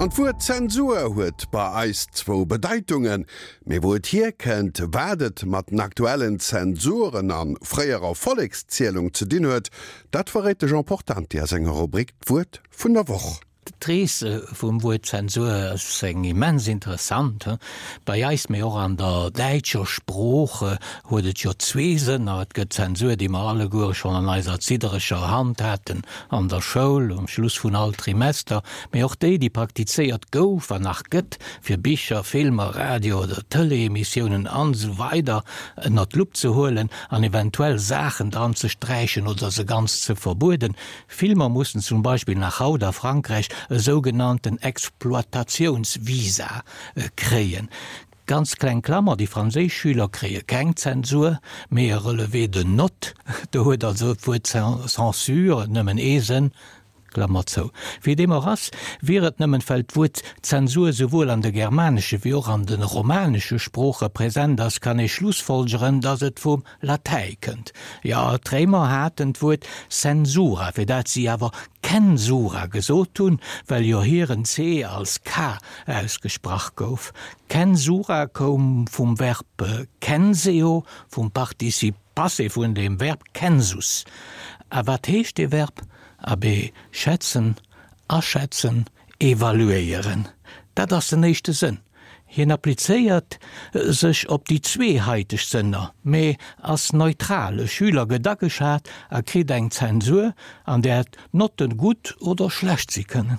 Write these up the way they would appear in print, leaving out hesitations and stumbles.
An d'Wuert Zensur huet bei eis zwou Bedeitungen. Mee wou et hierkënnt, wat et mat den aktuellen Zensuren a fréierer Vollekszielung ze dinn huet, dat verréit de Jean Portante a senger Rubrik D'Wuert vun der Woch. D'Rees vum Wuert Zensur ass eng immens interessant. Bei eis, mee och an der däitscher Sprooch huet et jo zwee Sënner. Et gëtt Zensur, déi mer alleguere schonn an eiser ziddereger Hand haten an der Schoul um Schluss vun all Trimester, mee och déi, déi praktizéiert gouf an nach gëtt, fir Bicher, Filmer, Radio oder Tëleemissiounen an esou weider ënnert d'Lupp ze huelen an eventuell Saachen dran ze sträichen oder se ganz ze verbueden. Filmer mussen zum Beispill nach haut a Frankräich e sougenannten Exploitatiounsvisa kréien. Ganz kleng Klammer, déi franséisch Schüler kréie keng Zensur, mee e Relevé de notes. Do huet also d'Wuert censure nëmmen ee Sënn, Klammer zou. Wéi deem och ass, wier et nëmmen, well d'Wuert Zensur souwuel an de germanesche wéi och an de romanesche Sprooche present ass, kann ee schlussfolgeren, datt et vum Latäi kënnt. Jo, d'Réimer haten d'Wuert censura, fir dat si awer censura gesot hunn, well jo hiren c als k ausgesprach gouf. Censura koum vum Verb censeo, vum Participe passé vun dem Verb census. A wat heescht dee Verb? Abee, schätzen, aschätzen, evaluéieren. Dat ass den éischte Sënn. Hien applizéiert sech op déi zwee haiteg Sënner, mee ass neutral, e Schüler gëtt ageschat a kritt eng Zensur, an där d'Notten gutt oder schlecht si kënnen.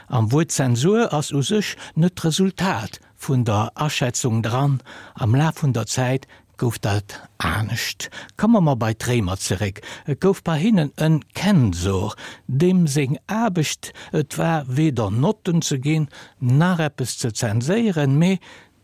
Am Wuert Zensur ass u sech net d'Resultat vun der Aschätzung dran, am Laf vun der Zäit gouf dat anescht. Komme mer bei d'Réimer zeréck. Et gouf bei hinnen en Kensor, deem seng Aarbecht et war, weder Notten ze ginn, nach eppes ze zenséieren, mee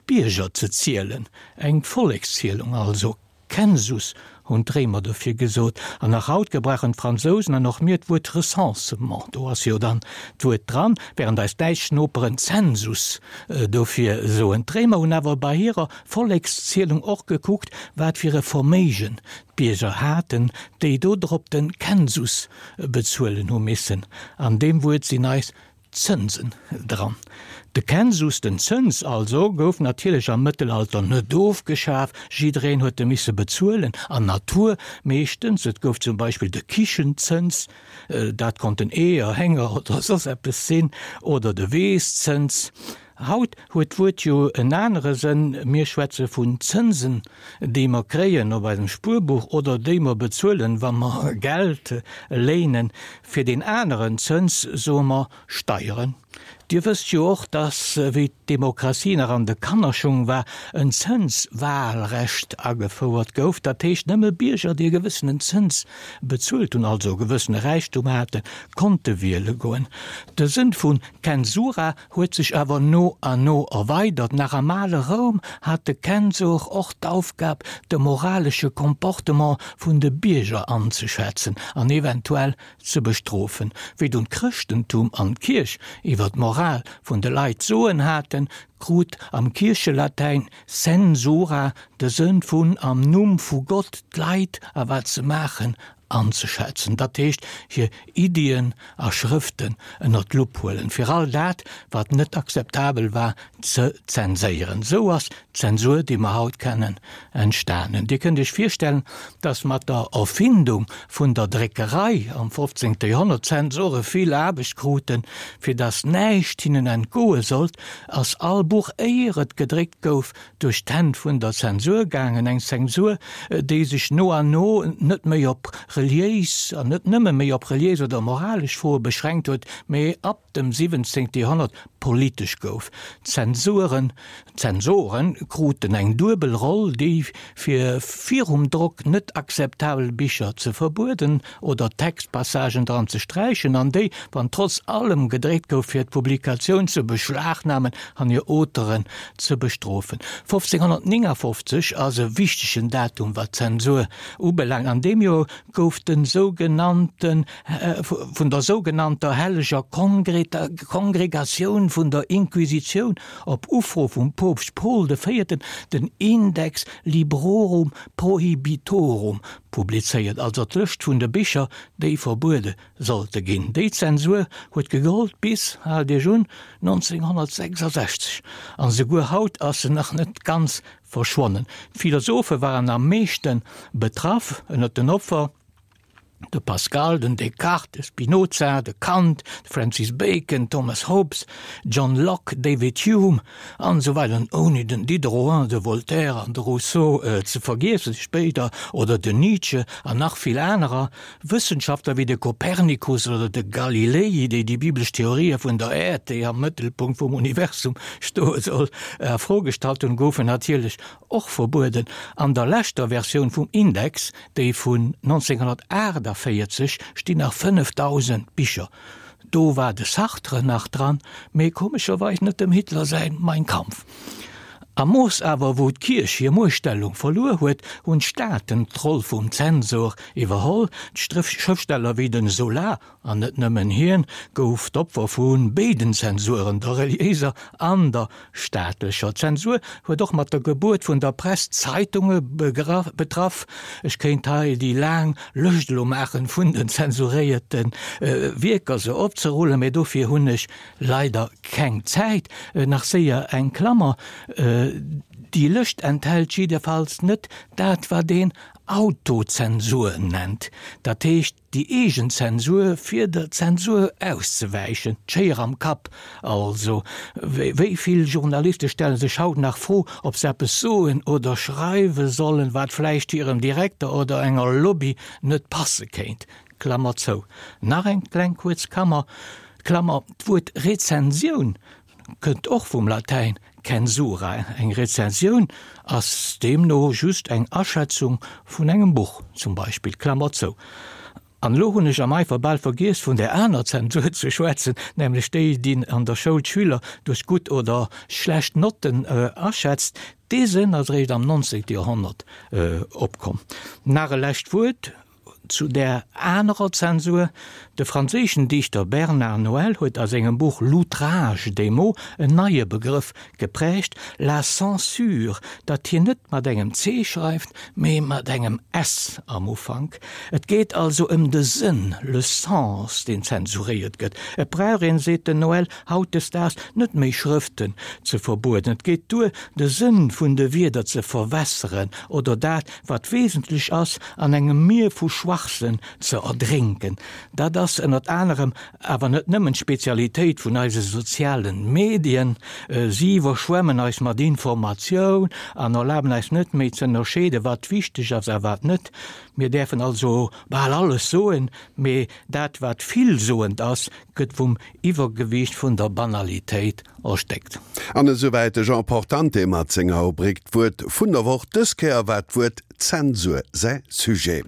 d'Bierger ze zielen, eng Vollekszielung also. Census hunn d'Réimer dofir gesot. An nach haut gebrauchen d'Fransousen an och mir d'Wuert Recensement, do ass jo dann d'Wuert dran, während eis däitsch Noperen Zensus dofir soen. D'Réimer hunn awer bei hirer Vollekszielung och gekuckt, wat fir e Verméigen d'Bierger haten, déi dodrop den Census bezuelen hu missen. An deem Wuert sinn eis Zënsen dran. De Census, den Zëns also, gouf natierlech am Mëttelalter net ofgeschaf, jiddereen huet e misse bezuelen, an Natur meeschtens. Et gouf zum Beispill de Kichenzëns, dat konnten Eeër, Hénger oder soss eppes sinn, oder de Weesszëns. Haut huet d'Wuert jo en anere Sënn, mir schwätze vun Zënsen, déi mer kréien op eisem Spuerbuch oder déi mer bezuelen, wa mer Geld léinen. Fir deen aneren Zëns soe mer Steieren. Dir wësst jo och, dass, wéi d'Demokratie nach an de Kannerschung war, en Zënswahlrecht agefouert gouf. Dat heescht, nëmme Bierger, déi e gewëssenen Zëns bezuelt hunn, also e gewëssene Räichtum haten, konnte wiele goen. De Sënn vun Censura huet sech awer no an no erweidert. Nach am ale Roum hat de Kensor och d'Aufgab, de moralesche Comportement vun de Bierger anzeschätzen an eventuell ze bestrofen. Wéi dunn d'Chrëschtentum an d'Kierch iwwer d'Moral vun de Leit d'Soen haten, krut am Kierchelatäin censura de Sënn vun am Numm vu Gott d'Leit a wat se maachen anzeschätzen, dat heescht hir Iddien a Schrëften ënner d'Lupp huelen, fir all dat, wat net akzeptabel war, ze zenséieren. Esou ass d'Zensur, déi mer haut kennen, entstanen. Dir kënnt Iech virstellen, dass mat der Erfindung vun der Dréckerei am 15. Joerhonnert d'Zensore vill Aarbecht kruten. Fir dass näischt hinnen entgoe sollt, ass all Buch, éier et gedréckt gouf, duerch d'Hänn vun der Zensur gaangen, eng Zensur, déi sech no an no net méi op reliéis an net nëmme méi op reliéis oder moralesch Froe beschränkt huet, mee ab dem 17. Joerhonnert politesch gouf. D'Zensuren, d'Zensoren kruten eng duebel Roll, déi fir virum Drock net akzeptabel Bicher ze verbueden oder Textpassagen dran ze sträichen, an déi, wann trotz allem gedréckt gouf, fir d'Publikatioun ze beschlagnamen an hir Auteuren ze bestrofen. 1559 ass e wichtegen Datum, wat d'Zensur ubelaangt. An deem Joer gouf de sougenannte vun der sougenannter Helleger Kongregatioun. vun der Inquisitioun op Ufro vum Poopst Paul de Véierten den Index Librorum Prohibitorum publizéiert, also d'Lëscht vun de Bicher, déi verbuede sollte ginn. Déi Zensur huet gegollt bis, haalt Iech un, 1966, an esouguer haut ass se nach net ganz verschwonnen. D'Philosophe waren am meeschte betraff. Ënnert den Opfer de Pascal, den Descartes, de Spinoza, de Kant, de Francis Bacon, Thomas Hobbes, John Locke, David Hume an esou weider, an ouni den Diderot, de Voltaire an de Rousseau ze vergiessen spéider, oder den Nietzsche an nach vill anerer. Wëssenschaftler wéi de Kopernikus oder de Galilei, déi déi biblesch Theorië vun der Äerd, déi am Mëttelpunkt vum Universum stoe soll, a Fro gestallt hunn, goufen natierlech och verbueden. An der leschter Versioun vum Index, déi vun 1948, stinn nach 5.000 Bicher. Do war de Sartre nach dran, mee komescherweis net dem Hitler säin Mein Kampf. Am Mooss awer wou d'Kierch hir Muechtstellung verluer huet, hunn d'Staaten d'Roll vum Zensor iwwerholl. D'Schrëftsteller wéi den Zola, an net nëmmen hien, gouf d'Opfer vu béiden Zensuren, der reliéiser an der staatlecher. D'Zensur huet och mat der Gebuert vun der Press d'Zeitunge betraff. Ech kéint hei déi laang Lëscht elo maachen vun den zensuréierte Wierker, se opzerullen, mee dofir hunn ech Leider keng Zäit. Nach séier eng Klammer, Déi Lëscht enthält jiddefalls net dat, wat een Autozensur nennt, dat heescht déi eegen Zensur, fir der Zensur auszewäichen, d'Schéier am Kapp also. Wéi vill Journaliste stelle sech haut nach d'Fro, ob se eppes soen oder schreiwe sollen, wat vläicht hirem Direkter oder enger Lobby net passe kéint? Klammer zou. Nach eng kleng kuerz Kammer, Klammer, D'Wuert Rezensioun kënnt och vum Latäin censura. Eng Rezensioun ass deemno just eng Aschätzung vun engem Buch zum Beispill. Klammer zou. An elo hunn ech am Eifer bal vergiess vun där aner Zensur ze schwätzen, nämlech déi, déi an der Schoul d'Schüler duerch gutt oder schlecht Notten aschätzt. Dee Sënn ass eréischt am 19. Joerhonnert opkomm. Nach e lescht Wuert Zu där anerer Zensur, De franséischen Dichter Bernard Noël huet a sengem Buch L'outrage des mots en neie Begrëff geprägt, la censure, dat hien net mat engem C schreift, mee mat engem S am Ufank. Et geet also ëm de Sënn, le sens, deen zensuréiert gëtt. Et brauch een, seet den Noël, hautdesdaags net méi Schrëften ze verbueden, et geet duer, de Sënn vun de Wierder ze verwässeren oder dat, wat wesentlech ass, an engem Mier vu Schwachsënn ze erdrénken. Dat ass ënnert anerem, awer net nëmmen, d'Spezialitéit vun eise sozialen Medien. Si iwwerschwemmen eis mat Informatioun an erlaben eis net méi ze ënnerscheeden, wat wichteg ass a wat net. Mir däerfen also bal alles soen, mee dat wat villsoend ass, gëtt vum Iwwergewiicht vun der Banalitéit erstéckt. An esouwäit de Jean Portante mat senger Rubrik D'Wuert vun der Woch. Dës Kéier war d'Wuert Zensur säi Sujet.